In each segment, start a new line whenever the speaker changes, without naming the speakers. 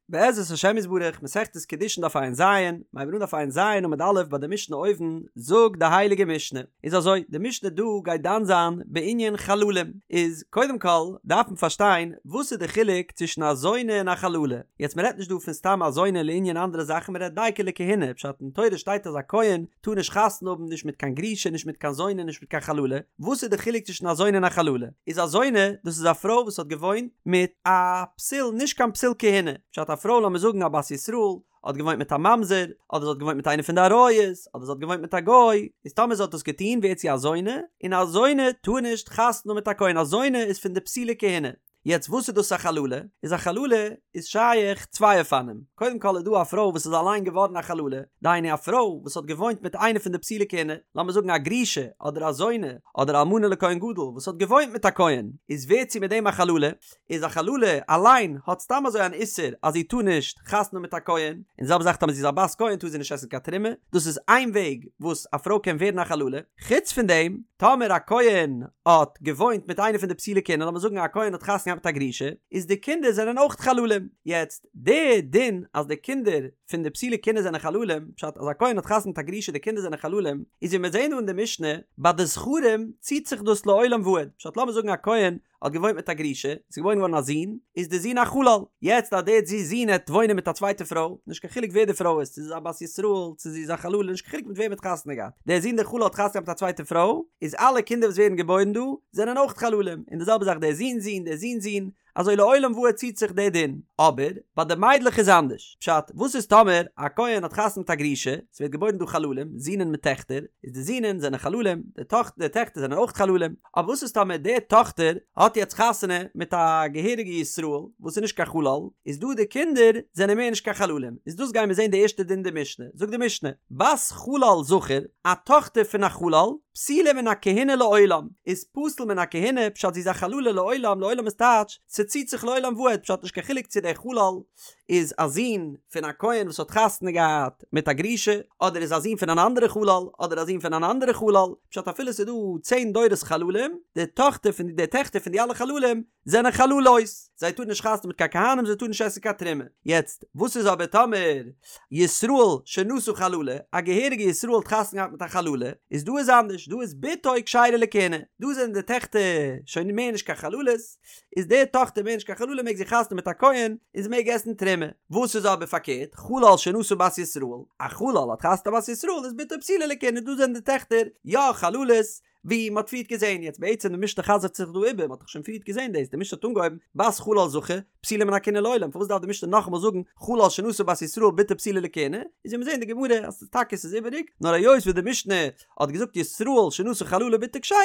בעזרת השם יתברך, מסכת קידושין דף ע"ז, מ'הייבט אן דף ע"ז עמוד א' ביי די משנה אויבן, זאגט די הייליגע משנה, איז אזוי, די משנה דא גייט דן זיין בענין חללים, איז קודם כל דארף מען פארשטיין וואס איז די חילוק צווישן א זונה און א חללה, יעצט מען רעדט נישט דא פון סתם א זונה לענין אנדערע זאכן מען רעדט דייקא לכהונה, פשט אין תורה שטייט אז א כהן טאר נישט חתונה האבן נישט מיט קיין גרושה נישט מיט קיין זונה נישט מיט קיין חללה, וואס איז די חילוק צווישן א זונה און א חללה? איז א זונה דאס איז א פרוי וואס האט געוואוינט מיט א פסול נישט קיין פסול כהונה, פשט א פרוי לאמיר זאגן א בת ישראל האט געוואוינט מיט א ממזר, אדער זי האט געוואוינט מיט איינער פון די עריות, אדער זי האט געוואוינט מיט א גוי, איז טאמער זי האט דאס געטון ווערט זי א זונה, און א זונה טאר נישט חתונה האבן מיט א כהן, א זונה איז פון די פסולי כהונה. יעצט וואס איז דאס א חללה? איז א חללה איז שייך צוויי אופנים, קודם כל איז דא א פרוי וואס איז אליין געווארן א חללה, דהיינו א פרוי וואס האט געוואוינט מיט איינע פון די פסולי כהונה, לאמיר זאגן א גרושה אדער א זונה אדער אלמנה לכהן גדול וואס האט געוואוינט מיט א כהן, איז ווערט זי מיט דעם א חללה, איז א חללה אליין האט סתם אזוי אן איסור אז זי טאר נישט חתונה מיט א כהן, און די זעלבע זאך טאמער זי איז א בת כהן טאר זי נישט עסן קיין תרומה, דאס איז איין וועג וואס א פרוי קען ווערן א חללה, חוץ פון דעם טאמער א כהן האט געוואוינט מיט איינע פון די פסולי כהונה, לאמיר זאגן א כהן האט חתונה געהאט מיט א גרושה, איז די קינדער זענען אויך חללים, יעצט די דין אז די קינדער פון די פסולי כהונה זענען חללים, פשט אז א כהן האט חתונה מיט א גרושה די קינדער זענען חללים, איז ווי מיר זעהן דא אין די משנה, ביי די זכרים ציט זיך דאס לעולם ועד, פשט לאמיר זאגן א כהן האט געוואוינט מיט א גרושה, ס'איז געבוירן געווארן א זון, איז די זון א חלל, יעצט אז די זון העט וואוינען מיט א צווייטע פרוי, נישט קיין חילוק ווער די פרוי איז, צו זי איז א בת ישראל, צו זי איז א חללה, נישט קיין חילוק מיט וועם ער האט חתונה געהאט, דער זון דער חלל האט חתונה געהאט מיט א צווייטע פרוי, איז אלע קינדער וואס ווערן געבוירן דא, זענען אויך חללים, און די זעלבע זאך דער זון'ס זון, דער זון'ס זון, אזוי לעולם ועד ציט זיך דער דין, אבער ביי די מיידלעך איז אנדערש, פשט, וואס איז טאמער א כהן האט חתונה מיט א גרושה, ס'ווערט געבוירן דא חללים, זינען מיט טעכטער, איז די זינען זענען חללים, די טאכ די טעכטער זענען אויך חללים, אבער וואס איז טאמער די טאכטער האט יעצט חתונה מיט א געהעריגע ישראל וואס איז נישט קיין חלל, איז דא די קינדער זענען מער נישט קיין חללים, איז דאס גייען מיר זען די ערשטע דין די משנה, זאגט די משנה, בת חלל זכר, א טאכטער פון א חלל, פסולה מן הכהונה לעולם, איז פסול מן הכהונה, פשט זי איז א חללה לעולם, לעולם איז טייטש, ס'ציט זיך לעולם ועד, פשט נישט קיין חילוק צו דער חלל איז א זון פון א כהן וואס האט חתונה געהאט מיט א גרושה, אדער איז א זון פון אן אנדערע חלל, אדער א זון פון אן אנדערע חלל, פשט אפילו ס'איז דא צען דורות חללים, די טאכטער פון די טעכטער פון די אלע חללים זענען חללות, זיי טארן נישט חתונה מיט קיין כהנים, זיי טארן נישט עסן קיין תרומה. יעצט, וואס איז אבער טאמער ישראל שנשא חללה, א געהעריגע ישראל האט חתונה געהאט מיט א חללה, איז דא איז אנדערש, דא איז בתו כשרה לכהונה, דא זענען די טעכטער שוין מער נישט קיין חללות, איז די טאכטער מער נישט קיין חללה מעג זי חתונה מיט א כהן, און זי מעג עסן תרומה. וואס איז אבער פארקערט, חלל שנשא בת ישראל, א חלל האט חתונה בת ישראל, איז בתו פסולה לכהונה, דא זענען די טעכטער יא חללות, ווי מ'האט פריערט געזען, יעצט בעצם די משנה חזר'ט זיך דא איבער, מ'האט דאך שוין פריערט געזען דאס, די משנה האט אנגעהויבן בת חלל זכר, פסולה מן הכהונה לעולם, פארוואס דארף די משנה נאכאמאל זאגן חלל שנשא בת ישראל בתו פסולה לכהונה, איז ווי מיר זעען די גמרא אז טאקע ס'איז איבעריג, נאר היות וואס די משנה האט געזאגט ישראל שנשא חללה בתו כשרה,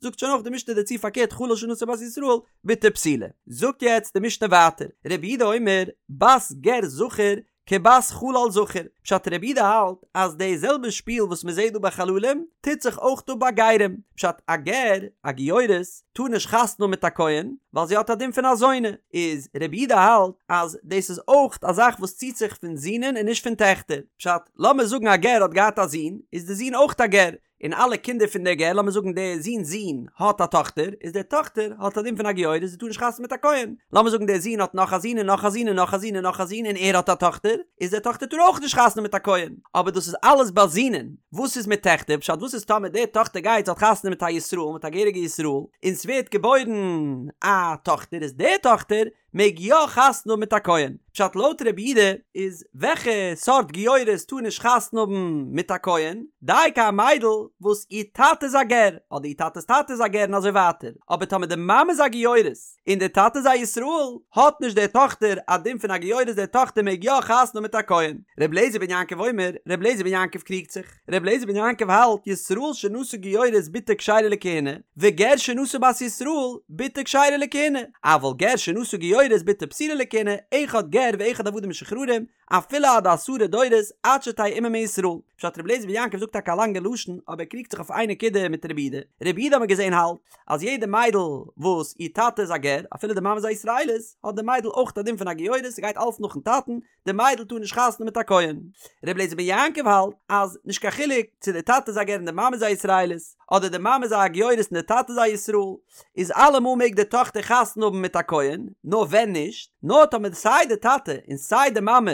זאגט שוין אויך די משנה דערצו פארקערט חלל שנשא בת ישראל בתו פסולה. זאגט יעצט די משנה ווייטער, רבי יהודה אומר בת גר זכר כבת חלל זכר, פשט רבי יהודה האלט אז די זעלבע שפיל וואס מען זעט דא ביי חללים טוט זיך אויך דא ביי גרים, פשט א גר, א גיורת, טאר נישט חתונה האבן מיט א כהן ווייל זי האט א דין פון א זונה, איז רבי יהודה האלט אז דאס איז אויך א זאך וואס ציט זיך פון זינען און נישט פון טעכטער, פשט לאמיר זאגן א גר האט געהאט א זון, איז די זון אויך א גר, און אלע קינדער פון דער גר, לאמיר זאגן דער זון'ס זון האט א טאכטער, איז דער טאכטער האט א דין פון א גיורת, זי טאר נישט חתונה מיט א כהן. לאמיר זאגן דער זון האט נאך א זון און נאך א זון און נאך א זון און נאך א זון און ער האט א טאכטער, איז דער טאכטער טאר אויך נישט חתונה מיט א כהן. אבער דאס איז אלעס ביי זינען. וואס איז מיט טעכטער? פשט וואס איז טאמער דער טאכטער גייט זי האט חתונה מיט א ישראל, מיט א געהעריגע ישראל, און ס'ווערט געבוירן א טאכטער, איז דער טאכטער מעג יא חתונה האבן מיט א כהן. פשט לויט רבי יהודה איז וועלכע סארט גיורת טאר נישט חתונה האבן מיט א כהן? דייקא א מיידל וואס איר טאטע איז א גר, אדער איר טאטע'ס טאטע איז א גר און אזוי ווייטער, אבער טאמער די מאמע איז א גיורת און די טאטע איז א ישראל, האט נישט די טאכטער א דין פון א גיורת די טאכטער מעג יא חתונה האבן מיט א כהן. רבי אליעזר בן יעקב אומר, רבי אליעזר בן יעקב קריגט זיך. ר' אליעזר בן יעקב האלט, ישראל שנשא גיורת בתו כשרה לכהונה, וגר שנשא בת ישראל בתו כשרה לכהונה, אבל גר שנשא גיורת בתו פסולה לכהונה, אחד גר ואחד עבדים משוחררים, אפילו עד עשרה דורות עד שתהא אמו מישראל. פשט ר' אליעזר בן יעקב זאגט טאקע א לאנגע לשון, אבער ער קריגט זיך אויף איין נקודה מיט רבי יהודה. רבי יהודה האט מען געזען האלט, אז יעדע מיידל וואס איר טאטע איז א גר, אפילו די מאמע איז א ישראלית, האט די מיידל אויך א דין פון א גיורת, ס'גייט אלץ נאכן טאטן, די מיידל טאר נישט חתונה מיט א כהן. ר' אליעזר בן יעקב האלט אז נישט קיין חילוק צו די טאטע איז א גר און די מאמע איז א ישראלית, אדער די מאמע איז א גיורת און די טאטע איז א ישראל, איז אלעמאל מעג די טאכטער חתונה האבן מיט א כהן, נאר ווען נישט, נאר טאמער סיי די טאטע און סיי די מאמע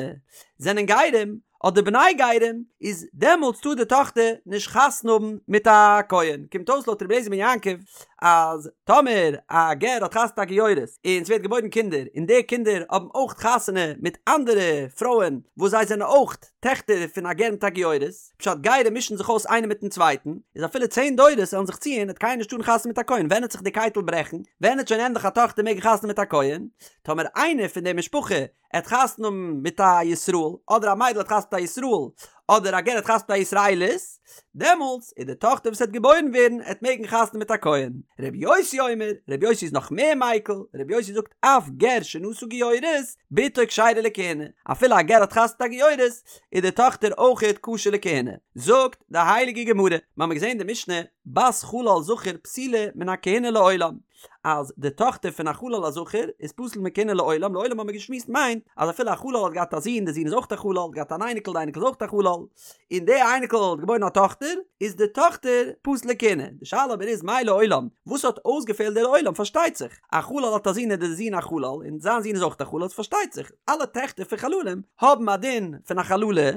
זענען גרים, אדער בני גרים, איז דעמאלטס טאר די טאכטער נישט חתונה האבן מיט א כהן. קומט אויס לויט רבי אליעזר בן יעקב אז טאמער א גר האט חתונה מיט א גיורת און ס'ווערט געבוירן קינדער און די קינדער האבן אויך חתונה מיט אנדערע פרויען וואס זיי זענען אויך טעכטער פון א גר מיט א גיורת, פשט גרים מישן זיך אויס איינער מיטן צווייטן, איז אפילו צען דורות וועלן זיך ציען וועט קיינער נישט טארן חתונה מיט א כהן, ווען וועט זיך די קייטל ברעכן? ווען וועט שוין ענדליך א טאכטער מעגן חתונה מיט א כהן? טאמער איינער פון די משפחה עט חתונה האבן מיט א ישראל, אדער א מיידל עט חתונה מיט א ישראל, אדער א גר עט חתונה מיט א ישראלית, דעמאלטס איז די טאכטער וואס עט געבוירן ווערן עט מעגן חתונה מיט א כהן. ר' יוסי אומר, ר' יוסי איז נאך מער מיקל, ר' יוסי זאגט אף גר שנשא גיורת, בתו כשרה לכהונה, אפילו א גר האט חתונה מיט א גיורת, איז די טאכטער אויכעט כשר לכהונה. זאגט די הייליגע גמרא, מ'האמיר געזען די משנה, בת חלל זכר פסולה מן הכהונה לעולם, אז די טאכטער פון א חלל א זכר איז פסול מכהונה לעולם, לעולם האבן מיר געשמועסט מיינט אז אפילו א חלל האט געהאט א זון, די זון איז אויך א חלל, האט געהאט אן אייניקל, די אייניקל איז אויך א חלל, און די אייניקל האט געבוירן א טאכטער, איז די טאכטער פסול לכהונה. די שאלה אבער איז מאי לעולם, וואס האט אויסגעפעלט די לעולם? פארשטייט זיך, א חלל האט א זון איז די זון א חלל, און זיין זון איז אויך א חלל, איז פארשטייט זיך, אלע טעכטער פון חללים האבן א דין פון א חללה,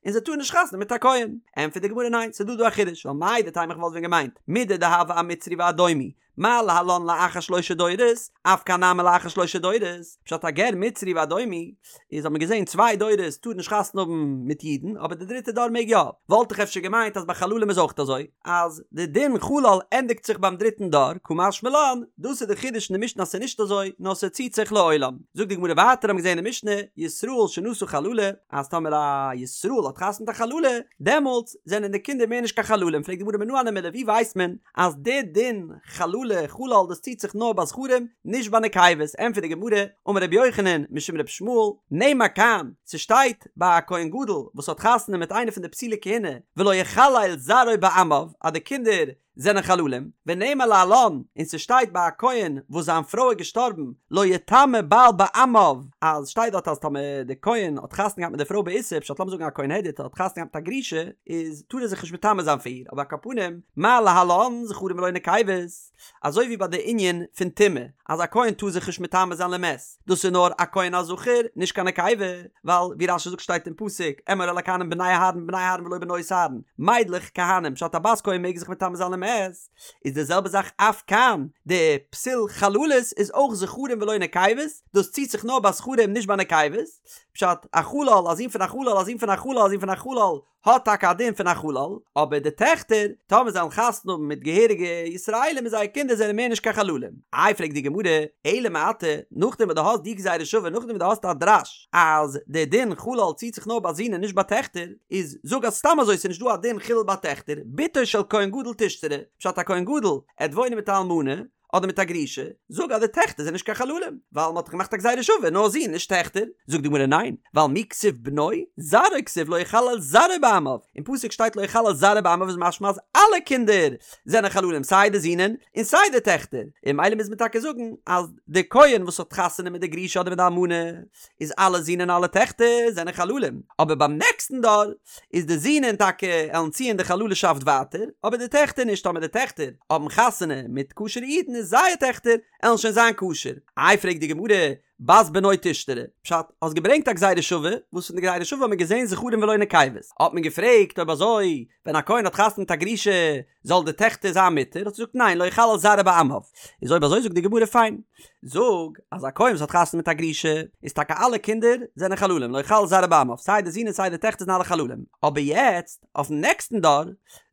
און זיי טארן נישט חתונה מיט א כהן. ענטפערט די גמרא ניין, ס'איז דא דא א חידוש, ווייל מהו דתימא איך וואלט ווען געמיינט, מידי דהוה אמצרי ואדומי, מה להלן לאחר שלשה דורות, אף כאן נמי לאחר שלשה דורות, פשט א גר מצרי ואדומי, איז האט מען געזען צוויי דורות טאר נישט חתונה האבן מיט אידן, אבער די דריטע דור מעג יא, וואלט איך אפשר געמיינט אז ביי חללים איז אויך אזוי, אז די דין חלל ענדיגט זיך ביים דריטן דור, קא משמע לן, דאס איז די חידוש אין די משנה אז ס'איז נישט אזוי, נאר ס'ציט זיך לעולם. זאגט די גמרא ווייטער האבן מיר געזען אין די משנה, ישראל שנשא חללה, אז טאמער א ישראל האט חתונה מיט א חללה, דעמאלטס זענען די קינדער מער נישט קיין חללים, פרעגט די גמרא מנא הני מילי ווי ווייסט מען אז די דין חללה חלל דאס ציט זיך נאר ביי זכרים נישט ביי נקבות, ענטפערט די גמרא, אמר רבי יוחנן משום רבי ישמעאל, נאמר כאן, ס'שטייט ביי א כהן גדול וואס האט חתונה מיט איינע פון די פסולי כהונה, ולא יחלל זרעו בעמיו, אז די קינדער זענען חללים, ונאמר להלן, און ס'שטייט ביי א כהן וואס זיין פרוי איז געשטארבן, לא יטמא בעל בעמיו, אז שטייט דארט אז טאמער די כהן האט חתונה געהאט מיט די פרוי באיסור, פשט לאמיר זאגן א כהן הדיוט האט חתונה געהאט מיט א גרושה, איז טאר ער זיך נישט מטמא זיין פאר איר, אבער על כל פנים, מה להלן זכרים ולא נקבות, אזוי ווי ביי די ענין פון טומאה, אז א כהן טאר זיך נישט מטמא זיין למת, דאס איז נאר א כהן א זכר, נישט קיין נקבה, ווייל ווי רש"י זאגט שטייט אין פסוק, אמור אל הכהנים בני אהרן בני אהרן ולא בנות אהרן, מיידלעך כהנים, פשט א בת כהן מעג זיך מטמא זיין למת, איז די זעלבע זאך אף כאן, די פסול חללות איז אויך זכרים ולא נקבות, דאס ציט זיך נאר ביי זכרים נישט ביי נקבות, פשט, א חלל, א זון פון א חלל, א זון פון א חלל, א זון פון א חלל, האט טאקע א דין פון א חלל, אבער די טעכטער, טאמער זיי וועלן חתונה האבן מיט געהעריגע ישראלים איז זייער קינדער זענען מער נישט קיין חללים. איי פרעגט די גמרא, אלא מעתה, נאכדעם וואס דו האסט די גזירה שווה, נאכדעם וואס דו האסט א דרש אז די דין חלל ציט זיך נאר ביי זין און נישט ביי טעכטער, איז זאג אז סתם אזוי ס'איז נישט דא א דין חילול ביי טעכטער, בתו של כהן גדול תשתרי, פשט א כהן גדול עט וואוינען מיט א אלמנה, אדער מיט א גרושה, זאג אז די טעכטער זענען נישט קיין חללים, ווייל מ'האט דאך געמאכט א גזירה שווה, נאר זין נישט טעכטער. זאגט די גמרא ניין, ווייל מי כתיב בנו, זרעו כתיב לא יחלל זרעו בעמיו, אין פסוק שטייט לא יחלל זרעו בעמיו איז משמע אז אלע קינדער זענען חללים סיי די זינען און סיי די טעכטער, און ממילא מוז מען טאקע זאגן אז די כהן וואס האט חתונה מיט די גרושה אדער מיט די אלמנה איז אלע זין און אלע טעכטער זענען חללים, אבער ביים נעקסטן דור איז די זינען טאקע עלן ציען די חללשאפט ווייטער, אבער די טעכטער נישט, טאמער די טעכטער האבן חתונה מיט כשר'ע אידן איז זייער טעכטער עלן שוין זיין כשר. איי פרעגט די גמרא, בת בנו תשתרי, פשט, האסט געברענגט א גזירה שווה, וואס פון די גזירה שווה האט מען געזען זכרים ולא נקבות, האט מען געפרעגט אויב אזוי ווען א כהן האט חתונה מיט א גרושה זאל די טעכטער זיין מותר, האט ער געזאגט ניין לא יחלל זרעו בעמיו, איז אויב אזוי זאגט די גמרא פיין, זאג אז א כהן וואס האט חתונה מיט א גרושה איז טאקע אלע קינדער זענען חללים לא יחלל זרעו בעמיו סיי די זין און סיי די טעכטער זענען אלע חללים, אבער יעצט אויפן נעקסטן דור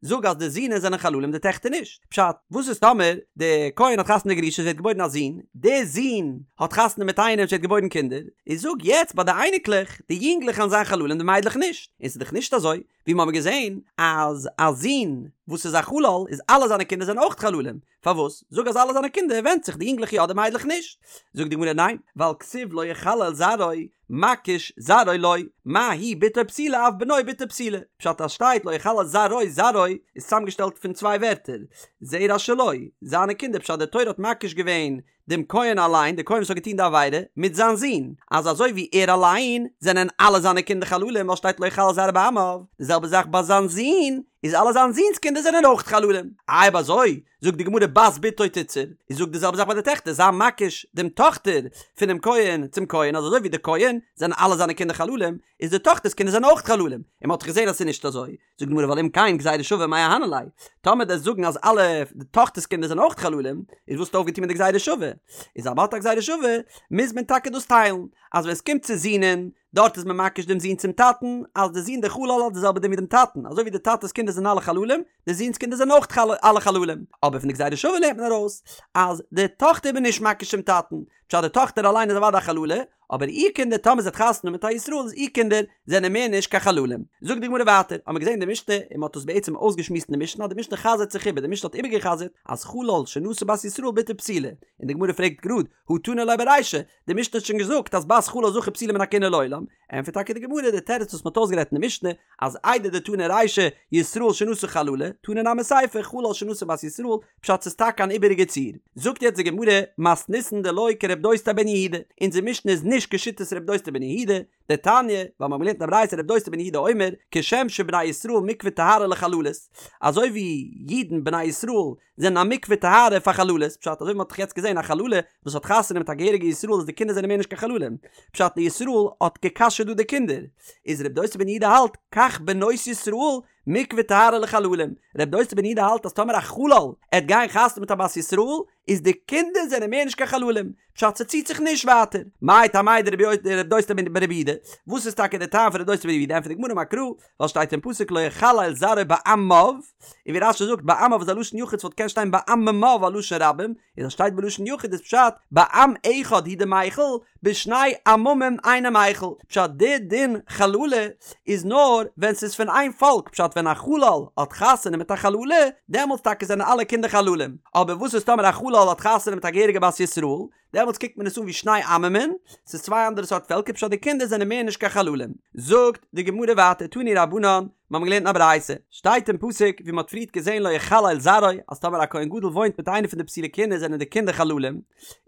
זאג אז די זינען זענען חללים די טעכטער נישט, פשט, וואס איז טאמער די כהן האט חתונה מיט די גרושה עס ווערט געבוירן א זון, די זון האט חתונה מיט איינעם עס ווערט געבוירן קינדער, איז זאג יעצט ביי די אייניקלעך די יונגלעך וועלן זיין חללים די מיידלעך נישט, און ס'איז דאך נישט אזוי, ווי מ'האמיר געזען אז א זון וואס איז א חלל איז אלע זיינע קינדער זענען אויך חללים, פארוואס? זאג אז אלע זיינע קינדער ווענדט זיך די יונגלעך יא די מיידלעך נישט. זאגט די גמרא ניין, ווייל כתיב לא יחלל זרעו, מקיש זרעו לו, מה הוא בתו פסולה אף בנו בתו פסולה, פשט אז שטייט לא יחלל זרעו זרעו איז צוזאמגעשטעלט פון צוויי ווערטער, זרע שלו, זיינע קינדער פשט די תורה האט מקיש געווען דעם כהן אליין, דער כהן וואס האט געטון די עבירה, מיט זיין זון, אז אזוי ווי ער אליין, זענען אלע זיינע קינדער חללים, ווייל שטייט לא יחלל זרעו בעמיו, די זעלבע זאך ביי זיין זון, איז אלע זיין זון'ס קינדער זענען אויך חללים. אויב אזוי, זאגט די גמרא בת בתו תיתסר, איז זאג די זעלבע זאך ביי די טעכטער, זיי מקיש דעם טאכטער פונעם כהן צום כהן, אז אזוי ווי די כהן זענען אלע זיינע קינדער חללים, איז די טאכטער'ס קינדער זענען אויך חללים, און מען האט דאך געזען אז ס'איז נישט אזוי, זאגט די גמרא ווייל אם כן גזירה שווה מאי אהני ליה, טאמער דו'סט זאגן אז אלע די טאכטער'ס קינדער זענען אויך חללים, איז וואס האסטו אויפגעטון מיט די גזירה שווה? איז אז מ'האט א גזירה שווה, מוז מען טאקע דאס טיילן, אז ווען עס קומט צו זינען, דארט איז מען מקיש דעם זון צום טאטן, אז די זון דער חלל האט די זעלבע דין ווי דעם טאטן, אזוי ווי די טאטע'ס קינדער זענען אלע חללים, די זון'ס קינדער זענען אויך אלע חללים. אבער פון די גזירה שווה לערנט מען ארויס, אז די טאכטער איז מען נישט מקיש צום טאטן, פשט די טאכטער אליין איז אוודאי א חללה, אבער איר קינדער טאמער זי האט חתונה מיט א ישראל איז איר קינדער זענען מער נישט קיין חללים. זאגט די גמרא ווייטער, האמיר געזען אין די משנה, און מען האט עס בעצם אויסגעשמועסט אין די משנה, אז די משנה חזר'ט זיך איבער, די משנה האט איבערגעחזר'ט אז חלל שנשא בת ישראל בתו פסולה, און די גמרא פרעגט גראד, הא תנא ליה ברישא, די משנה האט שוין געזאגט אז בת חלל זכר פסולה מן הכהונה לעולם, ענטפערט טאקע די גמרא די תירוץ וואס מען האט אויסגערעדט אין די משנה, אז איידי דתנא רישא ישראל שנשא חללה, תנא נמי סיפא חלל שנשא בת ישראל, פשט ס'איז טאקע אן איבעריגע ציור. זאגט יעצט די גמרא, מתניתין דלא כרב דוסתאי בן יהודה, אונזער משנה איז נישט כשיטת רב דוסתאי בן יהודה, דתניא, ווייל מ'האט געלערנט אין א ברייתא רב דוסתאי בן יהודה אומר, כשם שבני ישראל מקווה טהרה לחללות, אזוי ווי אידן בני ישראל זענען א מקווה טהרה פאר חללות, פשט אזוי ווי מ'האט דאך יעצט געזען א חללה וואס האט חתונה מיט א געהעריגע ישראל איז די קינדער זענען מער נישט קיין חללים, פשט די ישראל האט גע'כשר'ט דא די קינדער, איז רב דוסתאי בן יהודה האלט, כך בנות ישראל מקווה טהרה לחללים, רב דוסתאי בן יהודה האלט אז טאמער א חלל עט גיין חתונה מיט א בת ישראל איז די קינדער זענען מער נישט קיין חללים, פשט ס'ציט זיך נישט ווייטער. מאי טעמיה דרב דוסתאי ברבי יהודה, וואס איז טאקע די טעם פון רב דוסתאי ברבי יהודה, ענטפערט די גמרא אמר קרא, ווייל שטייט אין פסוק לא יחלל זרעו בעמיו, און ווי רש"י זאגט בעמיו איז א לשון יחיד ס'וואלט געקענט שטיין בעממיו א לשון רבים, איז אז שטייט בלשון יחיד איז פשט בעם אחד הוא דמיחל בשני עממים אינו מיחל, פשט די דין חללה איז נאר ווען ס'איז פון איין פאלק, פשט ווען א חלל האט חתונה מיט א חללה דעמאלטס טאקע זענען אלע קינדער חללים, אבער וואס איז טאמער א חלל האט חתונה מיט א געהעריגע בת ישראל, דעמאלטס קוקט מען עס אן ווי שני עממין, ס'איז צוויי אנדערע סארט פעלקער פשט די קינדער זענען מער נישט קיין חללים. זאגט די גמרא ווייטער תנו רבנן, מיר האבן געלערנט אין א ברייתא, שטייט אין פסוק ווי מ'האט פריערט געזען לא יחלל זרעו, אז טאמער א כהן גדול וואוינט מיט איינע פון די פסולי כהונה זענען די קינדער חללים,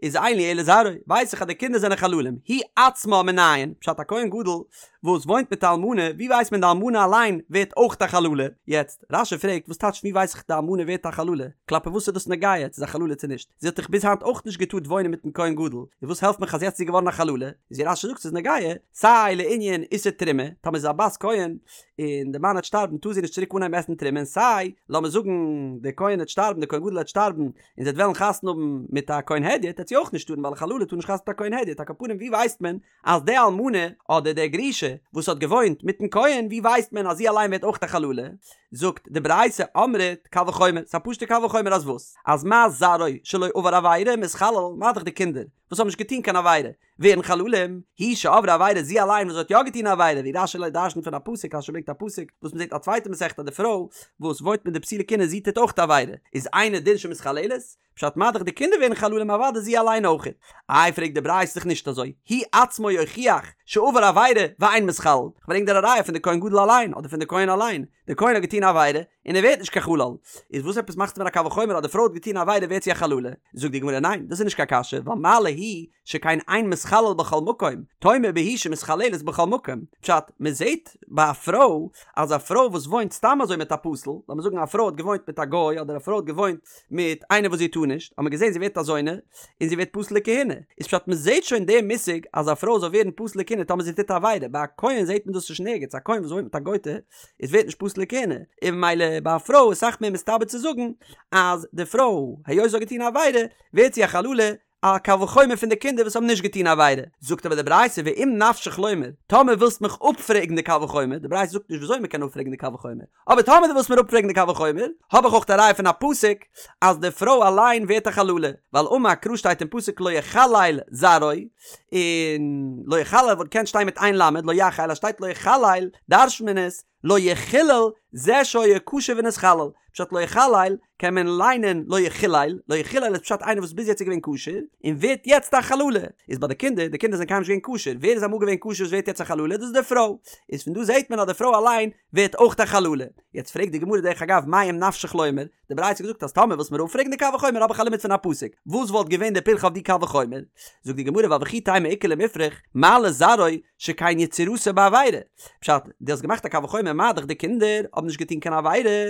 איז אין לי אלא זרעו, ווייס איך אז די קינדער זענען חללים, הוא עצמה מנין, פשט א כהן גדול וואס וואוינט מיט א אלמנה, ווי ווייסט מען די אלמנה אליין ווערט אויך א חללה? יעצט, רש"י פרעגט וואס טייטש ווי ווייס איך די אלמנה ווערט א חללה? כלפי וואס איז דאס נוגע צו איז א חללה צו נישט? זי האט דאך ביז היינט אויך נישט געטארט וואוינען מיטן כהן גדול, און וואס העלפט מיך אז יעצט איז זי געווארן א חללה? איז ווי רש"י זאגט ס'איז נוגע סיי לענין איסור תרומה, טאמער זי איז א בת כהן און די מאן העט שטארבן טאר זי נישט צוריק אנהייבן עסן תרומה און סיי לאמיר זאגן די כהן העט שטארבן די כהן גדול העט שטארבן און זי העט וועלן חתונה האבן מיט א כהן הדיוט העט זי אויך נישט טארן ווייל א חללה טאר נישט חתונה מיט א כהן הדיוט על כל פנים ווי ווייסט מען אז די אלמנה אדער די גרושה וואס האט געוואוינט מיטן כהן ווי ווייסט מען אז זי אליין ווערט אויך א חללה? זאגט די ברייתא אמרת קל וחומר, ס'איז א פשוטע קל וחומר אז וואס? אז מה זרעו שלא עבר עבירה מתחלל, מה דאך די קינדער וואס האבן נישט געטון קיין עבירה ווערן חללים, היא שעברה עבירה זי אליין וואס האט יא געטון א עבירה ווי רש"י דרש'נט פון א פסוק רש"י ברענגט א פסוק וואס מ'זעט א צווייטע מסכתא אז די פרוי וואס וואוינט מיט די פסולי כהונה זי טוט אויך די עבירה איז אינו דין שמתחללת, פשט מה דאך די קינדער ווערן חללים אוודאי זי אליין אויכעט. איי פרעגט די ברייתא ס'איז דאך נישט אזוי, הוא עצמו יוכיח שעבר עבירה ואין מתחלל, כ'ברענג דיר א ראיה פון די כהן גדול אליין אדער פון די כהן אליין, די כהן האט געטון א עבירה און ער ווערט נישט קיין חלל, איז וואס עפעס מאכסטו מיר א קל וחומר אז די פרוי האט געטון א עבירה ווערט זי א חללה? זאגט די גמרא ניין דאס איז נישט קיין קשיא ווייל מה להיא שכן אין מתחלל בכל מקום, תאמר בהיא שמתחללת בכל מקום, פשט, מען זעט ביי א פרוי אז א פרוי וואס וואוינט סתם אזוי מיט א פסול, לאמיר זאגן א פרוי האט געוואוינט מיט א גוי אדער א פרוי האט געוואוינט מיט איינער וואס זי טאר נישט, האט מען געזען זי ווערט א זונה, און זי ווערט פסול לכהונה, איז פשט מען זעט שוין די מושג אז א פרוי זאל ווערן פסול לכהונה טאמער זי טוט א עבירה, ביי א כהן זעט מען דאס נישט נערגעץ, א כהן וואס וואוינט מיט א גויטע איז ווערט נישט פסול לכהונה, און ממילא ביי א פרוי איז אסאך מער מסתבר צו זאגן אז די פרוי היות זי האט געטון א עבירה ווערט זי א חללה, א קל וחומר פון די קינדער וואס האבן נישט געטון עבירה, זאגט אבער די ברייתא ואם נפשך לומר, טאמער ווילסט מיך אפפרעגן די קל וחומר, די ברייתא זאגט נישט וויאזוי מען קען אפפרעגן די קל וחומר, אבער טאמער דו ווילסט מיר אפפרעגן די קל וחומר, האב איך אויך א ראיה פון א פסוק אז די פרוי אליין ווערט א חללה, ווייל אמר קרא שטייט אין פסוק לא יחלל זרעו, און לא יחלל וואלט געקענט שטיין מיט איין למד, לא יחל, אז שטייט לא יחלל דרש'נט מען עס לא יחולל זה שהיה כשר ונתחלל, פשט לא יחלל קען מען ליינען לא יחולל, לא יחולל איז פשט איינער וואס ביז יעצט איז געווען כשר און ווערט יעצט א חללה, איז ביי די קינדער, די קינדער זענען קיינמאל נישט געווען כשר, ווער איז אמאל געווען כשר וואס ווערט יעצט א חללה, דאס איז די פרוי, איז פון דא זעט מען אז די פרוי אליין ווערט אויך א חללה, יעצט פרעגט די גמרא דרך אגב מאי אם נפשך לומר, די ברייתא האט געזאגט אז טאמער ווילסט מיר אפפרעגן די קל וחומר האב איך א לימוד פון א פסוק, וואס וואלט געווען די פירכא אויף די קל וחומר? זאגט די גמרא ווייל וכי תימא איכא למיפרך מה לזרעו שכן יצירתו בעבירה, פשט, דו האסט געמאכט א קל וחומר. מה דאך די קינדער האבן נישט געטון קיין עבירה,